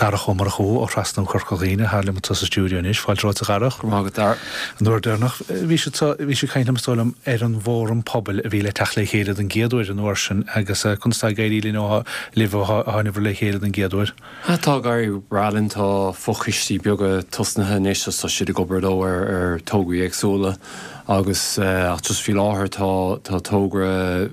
Darach Ó Murchú ó Thrasnú Chorca Dhuibhne atá liom anseo sa stiúideo anois. Fáilte romhat a Dharach. Go raibh maith agat, Dara. An uair deireanach bhí siad so, bhí siad ag caint liom is dóigh liom ar an bhFóram Pobail a bhí le teacht le chéile don gcéad uair an uair sin agus conas tá ag éirí linn ó libh ó tháinabhair le chéile don gcéad uair? Tá ag éirí breá linn, tá fochoistí beaga tosnaithe anois agus tá siad ag obair leo ar ar tograí éagsúla agus ach just faoi láthair tá tá togra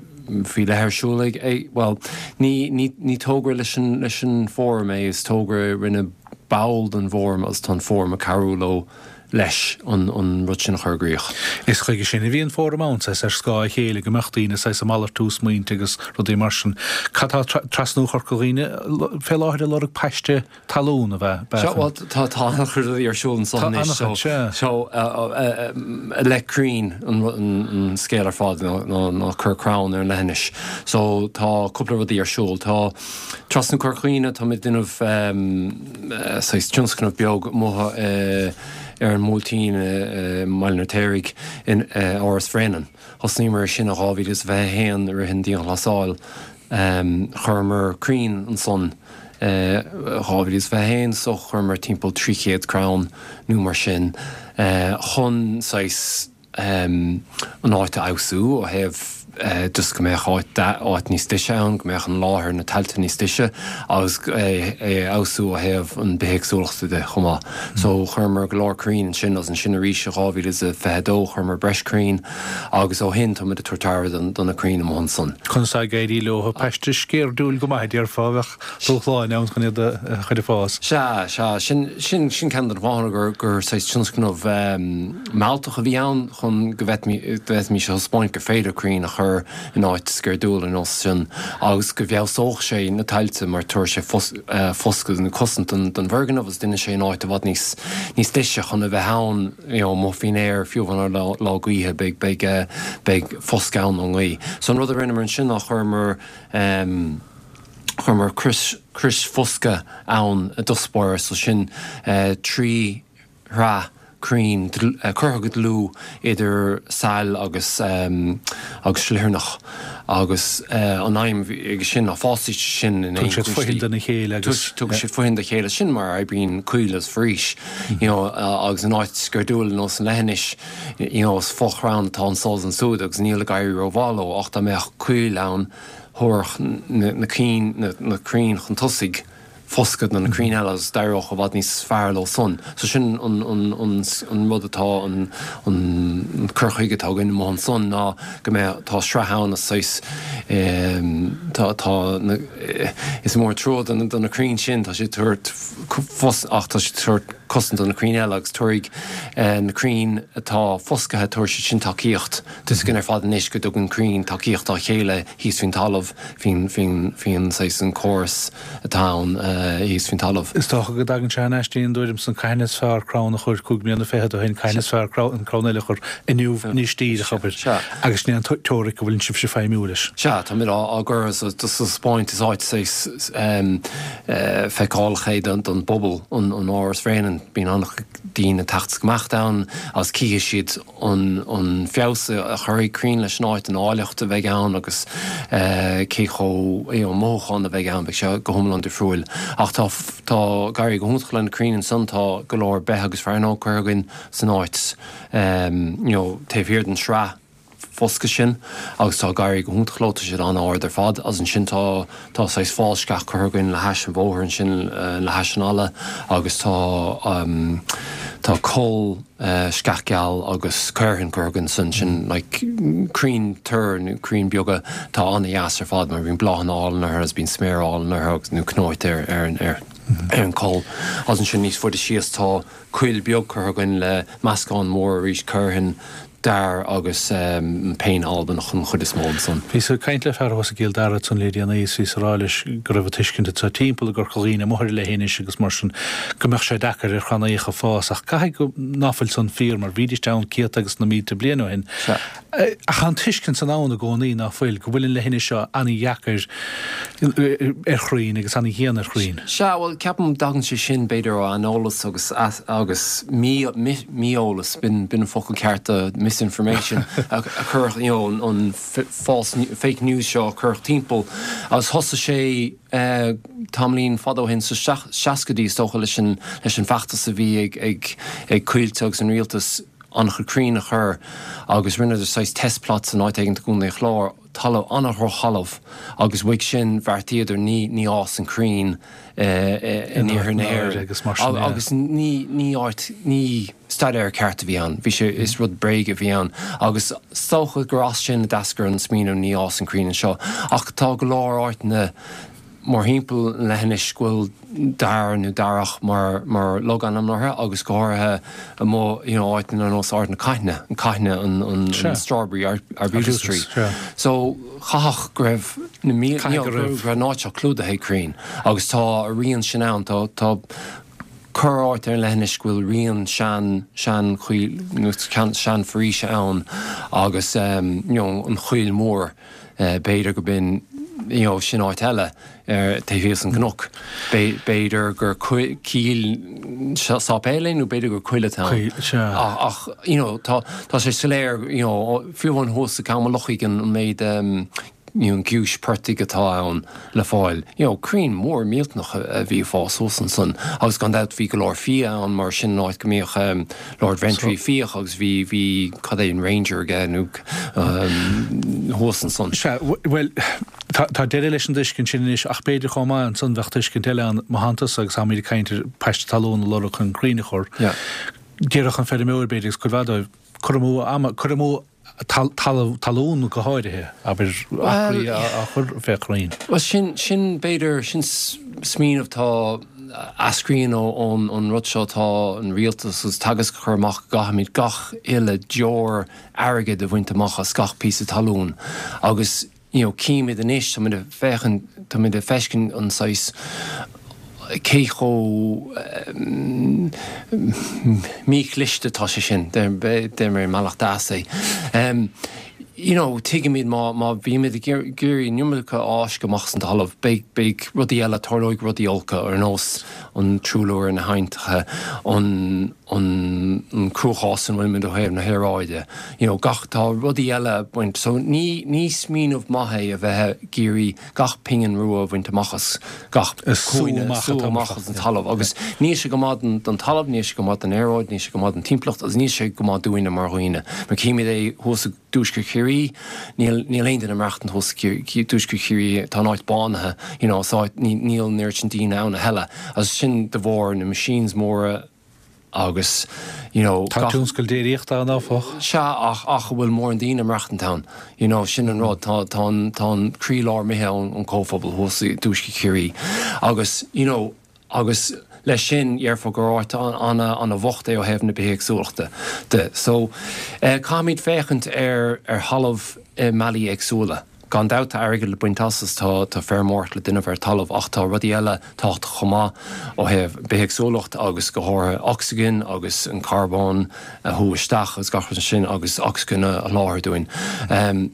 faoi leith ar siúl ag, ag, bhuel, ní, ní, ní togra leis an, leis an bhFóram é, is togra a rinne ball den bhFóram agus tá an Fóram ag cabhrú leo leis an, an rud sin a chur i gcrích. Is chuige sin a bhí an Fóram ann, saghas ar scáth a chéile, go mbeadh daoine saghas ag malartú smaointe agus rudaí mar sin. Cad tá Trasnú Chorca Dhuibhne fé láthair ag lorg paiste talún a bheith. Sea, bhuel, tá tá an-chuid rudaí ar siúl anso Tá anois, so, an-chuid, sea. so, i leith crainn an an scéal ar fad ná ná ná cur crann ar an leithinis. So, tá cúpla rudaí ar siúl. Tá Trasnú Chorca Dhuibhne, táimid ag déanamh saghas tionscnamh beag amuigh ar an mBuailtín i mBaile an Fheirtéaraigh in Áras Bhréanainn. Thosnaíomar ar sin i 2021 i rith an dianghlasáil. Chuireamar crainn ansan i 2021 so chuireamar timpeall 300 crann nó mar sin chun saghas an áit a fheabhsú ó thaobh just go mbeadh áit áit níos deise ann, go mbeadh an láthair, na tailte níos deise agus é a fheabhsú ó thaobh an bithéagsúlachta de chomh maith. So chuireamar go leor crainn ansin agus ansin arís i 2022 chuireamar breis crainn. Agus ó shin táimid ag tabhairt aire do na crainn amuigh ansan. Conas tá ag éirí leo? Paiste sceirdiúil go maith, a déarfá, a bheadh dúshláin ann chun iad a chur ag fás. Sea, sea. Sin, sin, sin ceann de na fáthanna gur, gur saghas tionscnamh mealltach a bhí ann chun go bhféadfaimis a thaispeáint gur féidir crainn a chur in áit sceirdiúil ar nós sin agus go bhfeabhsódh sé na tailte mar tabharfaidh sé foscadh nó cosaint don bhfoirgneamh agus déanfaidh sé an áit i bhfad níos, níos deise chun a bheith ann. you know amuigh faoin aer, fiú amháin ar lá gaoithe, beidh, beidh, beidh foscadh ann ón ngaoth. So an rud a rinneamar ansin ná chuireamar ehm, chuireamar crios, crios foscaidh ann i dtosach báire, so sin eh 3 shraith crainn curtha go dlúth idir sail agus ehm agus sliotarnach agus eh an aidhm aige sin ná fásfaidh siad sin in aon Tugann siad fothain dona chéile agus. Tugann siad fothain dá chéile, sin mar a oibríonn coill agus foraois. you know, agus in áit sceirdiúil ar nós an leithinis, you know, is fo-chrann atá anso is ansúd agus níl ag éirí rómhaith leo ach dá mbeadh coill ann thabharfadh na cinn, na crainn chun tosaigh foscadh do na crainn eile agus d'éireodh i bhfad níos fearr leo san. So sin an, an, an, an rud atá, an, an cur chuige atá againn amuigh ansan ná go mbeadh, tá sraith ann is saghas, tá, tá na, is mór an trua do na, do na crainn sin, tá siad ag tabhairt, ach tá siad ag tabhairt cosaint do na crainn eile agus tabharfaidh na crainn atá foscaithe, tabharfaidh siad sin tacaíocht. Tá 'fhios againn ar fad anois go dtugann crainn tacaíocht dá chéile thíos faoin talamh, faoin, faoin, faoin saghas an córas atá ann thíos faoin talamh. Is dócha go dtagann sé thar n-ais dtí an dtuairim san cathain is fearr crann a chur 25 mbliana ó shin, cathain is fearr an crann eile a chur inniu anois díreach, abair. Agus sin é an teoiric a bhfuileann sibhse feidhmiú leis. Sea, táimid á gcur sa taispeáint is áit saghas feiceálach é don bpobal, an Áras Bhréanainn. Bíonn an-chuid daoine ag teacht is ag imeacht ann agus cífidh siad an feabhas a chuirfidh crainn leis an áit, an áilleacht a bheidh ann agus cé chomh, you know, mothúchán a bheidh ann, beidh sé go hiomlán difriúil. Ach tá, tá ag éirí go hiontach le na crainn ansan, tá go leor beith agus fearnóg curtha againn san áit, you know, taobh thiar den sraith foscaidh sin agus tá ag éirí go hiontach leo, tá siad an-ard ar fad agus ansin tá, tá saghas fál sceach curtha againn le hais an bhóthair ansin, le hais an fhalla agus tá, tá coll sceach geal agus caorthann curtha againn ansin, sin like crainn toir nó crainn beaga atá an-dheas ar fad mar bíonn bláthanna álainn orthu agus bíonn sméar álainn orthu agus nó cnóite ar, ar an, ar, ar an coll. Agus ansin níos faide síos tá coill beag curtha againn le meascán mór arís caorthann, dair agus péin Albanach an chuid is mó ansan. Bhíos ag caint le fear thuas i gCill Dara ansan le déanaí is bhíos ag rá leis go raibh an tuiscint anseo timpeall i gCorca Dhuibhne amuigh ar an leithinis agus mar sin go mbeadh sé deacair ar chrannaíocha fás ach caithfidh go ná fuil san fíor mar bhídíst ann céadta agus na mílte bliain ó shin. Ach tá an tuiscint san ann i gcónaí ná fuil, go bhfuil an leithinis seo an-dheacair ar chrainn agus an-dhian ar chrainn. Sea, bhuel, ceapaim dtagann sé sin b'fhéidir ó aineolas agus agus mí-eolas, b'in an focal ceart do. misinformation a cuireadh, you know, an false, fake news seo a cuireadh timpeall agus thosaigh sé tamaillín fada ó shin, sa seascaidí is dócha, leis an, leis an bhfeachtas a bhí ag, ag, ag Coillte agus an rialtas an-chuid crainn a chur agus rinneadar saghas test plots in áit éigin i gContae an Chláir, talamh, an-dhrochthalamh agus uaidh sin bheartaíodar ní, ní fhásann crainn in iarthar na hÉireann agus ní, ní áit, ní staidéar ceart a bhí ann, bhí sé, is rud bréige a bhí ann agus is dócha gur as sin a d'eascair an smaoineamh ní fhásann crainn anseo ach tá go leor áiteanna mórthimpeall an leithinis go bhfuil dair nó darach mar mar logainm orthu agus go háirithe amuigh you know áiteanna ar nós Ard na Caithne, an Caithne an an an strawberry arbutus tree. So chaithfeadh go raibh na mílte you know go raibh an áit seo clúdaithe ag crainn agus tá a rian sin ann tá tá corr áit ar an leithinis go bhfuil rian sean sean choill nó sean foraoise ann agus you know an Choill Mhór B'fhéidir go b'in, you know, sin áit eile ar taobh thíos an cnoc. B'fhéidir gur cill sáipéil é nó b'fhéidir gur coill atá ann. Ach, you know, tá tá sé soiléir, you know, fiú amháin thuas i gCam an Lochaigh an méid you know, an giúis portaigh atá ann le fáil. You know, crainn mór millteanach a bhí ag fás thuas ansan agus gan dabht bhí go leor fia ann mar sin an áit go mbíodh Lord Ventry ag fiach agus bhí, bhí, cad é, an Ranger aige nó thuas ansan. Sea, bhuel, tá, tá deireadh leis an dtuiscint sin anois ach b'fhéidir chomh maith ansan bheadh tuiscint eile ann má thánn tusa agus táimid ag caint ar paiste talún a lorg chun crainn a chur. Yeah. Déarfadh an feirmeoir b'fhéidir agus cuid mhaith dóibh, cur amú ama, cur amú talamh, talún go háirithe, abair, acraí á chur fé chrainn. Bhuel, sin, sin b'fhéidir, sin smaoineamh atá, eascraíonn ón, ón rud seo atá an rialtas agus Teagasc a chur amach go gcaithfimid gach uile deoir airgid a bhaint amach as gach píosa talún agus, you know, címid anois, táimid ag féachaint, táimid ag feiscint an saghas, cé chomh míchliste atá sé sin, deir mé i mbealach deas é. You know, tuigimid má, má bhímid ag iarraidh an iomarca a fháisceadh amach as an talamh, beidh, beidh rudaí eile, tarlóidh rudaí olca ar nós an truailliú ar na haibhneacha, an, an cruachás ina bhfuilimid ó thaobh na haeráide, you know, gach, tá rudaí eile ag baint, so ní, ní smaoineamh maith é a bheith ag iarraidh gach pingin rua a bhaint amach as gach cúinne, sú amach as an talamh agus níl sé go maith don talamh, níl sé go maith don aeráid, níl sé go maith don timpeallacht agus níl sé go maith dúinne mar dhaoine. Mar címid é thuas i dtuaisceart Chiarraí, níl níl aon duine ag maireachtaint thuas i dtuaisceart Chiarraí, tá an áit bánaithe, you know, is áit, níl an oiread sin daoine ann a thuilleadh agus sin de bharr na machines móra, agus you know Tá tionscal déiríochta ann áfach. Sea ach ach an bhfuil mórán daoine ag maireachtaint ann you know sin an rud tá tá an tá an croílár imithe ón ón comhphobal thuas i dtuaisceart Chiarraí agus you know agus leis sin dhéarfá gur áit ana ana bhocht é ó thaobh na bithéagsúlachta de so eh caithfimid féachaint ar ar thalamh i mbealaí éagsúla. Gan dabht tá airgead le baint as is tá tá feirmeoireacht le déanamh ar talamh ach tá rudaí eile tábhachtach chomh maith ó thaobh bithéagsúlacht agus go háirithe ocsaigin agus an carbón a shú isteach agus gach rud sin agus ocsaigin a sholáthar dúinn.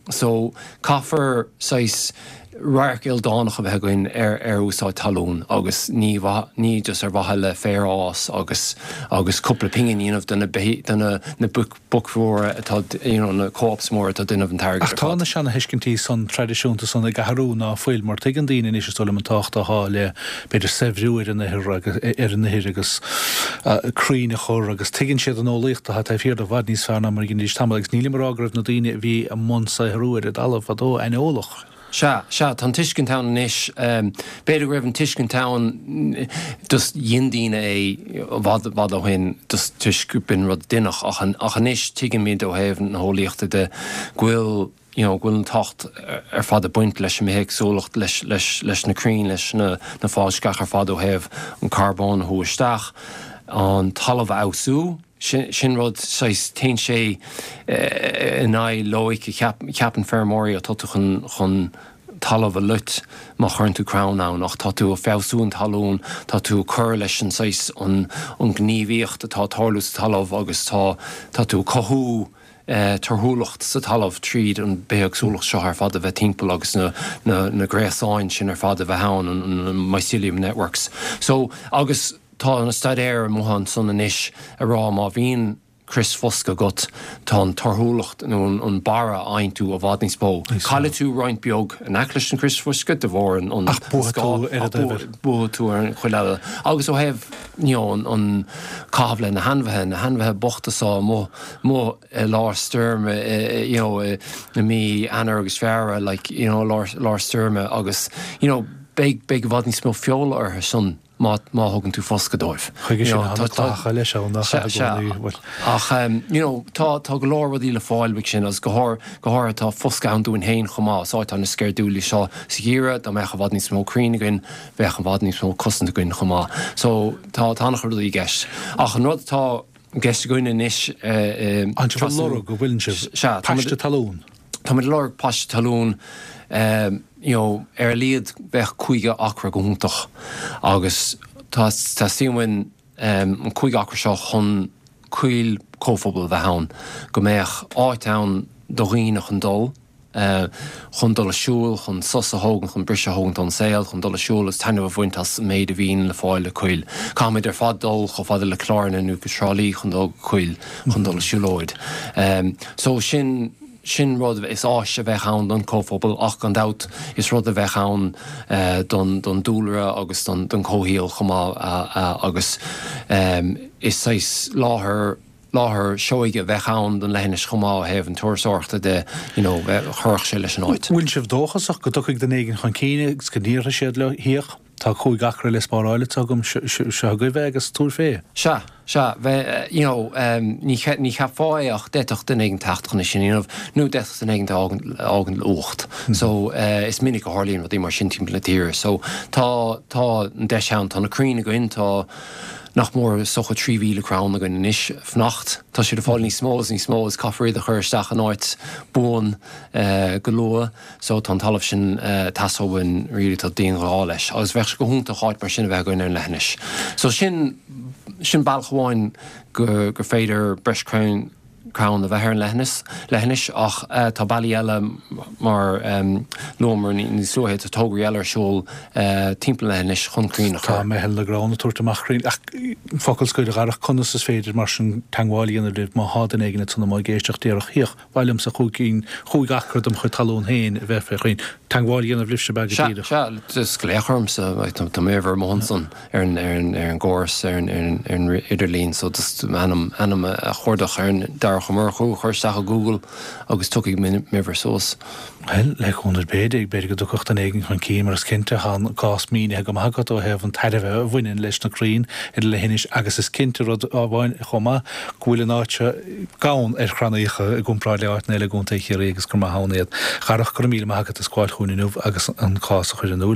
So caithfear saghas radharc ildánach a bheith againn ar ar úsáid talún agus ní ní just ar mhaithe le féar a fhás agus agus cúpla pingin a dhéanamh do na do na na boic boic mhóra atá, you know, na co-ops móra atá ag déanamh an t-airgead Ach ar tá fad. na seanathuiscintí san traidisiúnta san ag athrú, ná fuil? Mar tuigeann daoine anois, is dóigh liom, an tábhacht atá le, b'fhéidir, saibhriú ar an ithir agus, ar an ithir agus crainn a chur agus tuigeann siad an eolaíocht atá taobh thiar de i bhfad níos fearr ná mar a dheinidís tamall agus nílim ag rá go raibh na daoine a bhí i mbun saothrú ar an dtalamh fadó aineolach. Sea, sea, tá an tuiscint ann anois. B'fhéidir go raibh an tuiscint ann, just dhein daoine é i bhfad, bhfad ó shin just toisc go b'in rud a deineadh ach, ach anois tuigimid ó thaobh na heolaíochta de go bhfuil, you know, go bhfuil an tábhacht ar fad ag baint leis an mbithéagsúlacht, leis, leis, leis na crainn, leis na, na fálsceach ar fad ó thaobh an carbón a shú isteach, an talamh a fheabhsú. Sin rud, saghas, téann sé in aghaidh loighic a cheapann feirmeoirí, ó tá tú chun talamh a loit má chuireann tú crann ann, ach tá tú ag feabhsú an talún, tá tú ag cur leis an saghas, an ghníomhaíocht atá ag tarlú sa talamh agus tá, tá tú ag cothú torthúlacht sa talamh tríd an bithéagsúlacht seo ar fad a bheith timpeall agus na, na, na gréasáin sin ar fad a bheith ann, an mycelium networks. So, agus. Tá na staidéir amuigh ansan anois ag rá má bhíonn. Crios foscaidh agat, tá an torthúlacht nó an barra a fhaigheann tú i bhfad níos mó. Caillfidh tú roinnt beag in aice leis an gcrios foscaidh de bharr an Ach buafaidh tú ar an dtaobh eile. Buafaidh tú ar an chuid eile. Agus ó thaobh you know an caitheamh le na hainmhithe, na hainmhithe bochta so amuigh amuigh i lár stoirme you know i mí Eanáir agus Feabhra like you know lár lár stoirme agus you know beidh beidh i bhfad níos mó feola orthu san. má thugann tú foscadh dóibh. Chuige sin tá na clathacha leis ann nach ea i gcónaí, bhuel. Ach you know tá tá go leor rudaí le fáil uaidh sin agus go go háirithe tá foscadh ann dúinn féin chomh maith. Is áit an-sceirdiúil í seo sa gheimhreadh, dá mbeadh i bhfad níos mó crainn againn bheadh i bhfad níos mó cosaint againn chomh maith. So tá tá an-chuid rudaí i gceist. Ach an rud atá i gceist againn anois i Tá sibh ag lorg, an bhfuileann sibh? Sea, Paiste talún. Táimid ag lorg paiste talún, you know, ar a laghad bheadh 50 acra go hiontach agus tá, teastaíonn uainn an 50 acra seo chun coill comhphobail a bheith ann, go mbeadh áit ann do dhaoine chun dul, chun dul a siúl, chun sos a thógaint, chun briseadh a thógaint ón saol, chun dul a siúl agus taitneamh a bhaint as an méid a bhíonn le fáil i coill. Caithfimid ar fad dul chomh fada le Cill Airne nó go Trá Lí chun dul go coill, chun dul a siúlóid. So sin, sin rud, is áis a bheadh ann don chomhphobal ach gan dabht is rud a bheadh ann don, don dúlra agus don, don chomhshaol chomh maith agus is saghas láthair, láthair seoighe a bheadh ann don leithinis chomh maith ó thaobh an turasóireachta de, you know, chuirfeadh sé leis an áit. Bhfuil sibh dóchasach go dtiocfaidh duine éigin chun cinn agus go n-iarrfaidh siad leo theach? Tá 5 acra le spáráil anseo agam, seo agaibh é agus tabhair fé. Sea, sea, bheith, you know, ní, ní cheapfá é ach d'fhéadfadh duine éigin teacht chun é sin a dhéanamh nó d'fhéadfadh duine éigin a fhágaint le uacht. So, is minic a tharlaíonn rudaí mar sin timpeall na tíre. So, tá, tá an deis ann, tá na crainn againn, tá nach mór is dócha 3,000 crann againn anois ag fanacht. Tá siad ag fáil níos mó is níos mó agus caithfear iad a chur isteach in áit buan go luath. So tá an talamh sin ag teastáil uainn really, tá dianghá leis agus bheadh sé go hiontach áit mar sin a bheith againn ar an leithinis. So sin, sin bealach amháin go, gur féidir breis crainn, crann a bheith ar an leithinis, leithinis ach tá bealaí eile mar luamar níos luaithe, tá tograí eile ar siúl timpeall an leithinis chun crainn a chur. Tá Meitheal na gCrann ag tabhairt amach crainn ach focal scoir a Dharach, conas is féidir mar sin teagmháil a dhéanamh libh má thá duine éigin ansan amuigh ag éisteacht déarfadh 'Hiach, Mhaith liomsa chúig chúig acra dem chuid talún féin a bheith fé chrainn. Teagmháil a dhéanamh libhse ab ea go Sea, díreach. sea, just glaoch ormsa, tá m'uimhir amuigh ansan ar an, ar an, ar an gcóras, ar an, ar an, ar an idirlíon, so just m'ainm, ainm a chuardach ar an Darach Ó Murchú a chur isteach i Google agus tiocfaidh m'uimhir suas. Bhuel, le cúnamh Dé, b'fhéidir go dtiocfadh duine éigin chun cinn, mar is cinnte, tá an cás mínithe go maith agat ó thaobh an tairbhe a bhaineann leis na crainn ar an leithinis agus is cinnte rud amháin chomh maith, go bhfuil an áit seo gann ar chrannaíocha i gcomparáid le áiteanna eile i gContae Chiarraí agus gur maith ann iad. A Dharach, go raibh míle maith agat as gabháil chugainn inniu agus an cás a chur in iúl.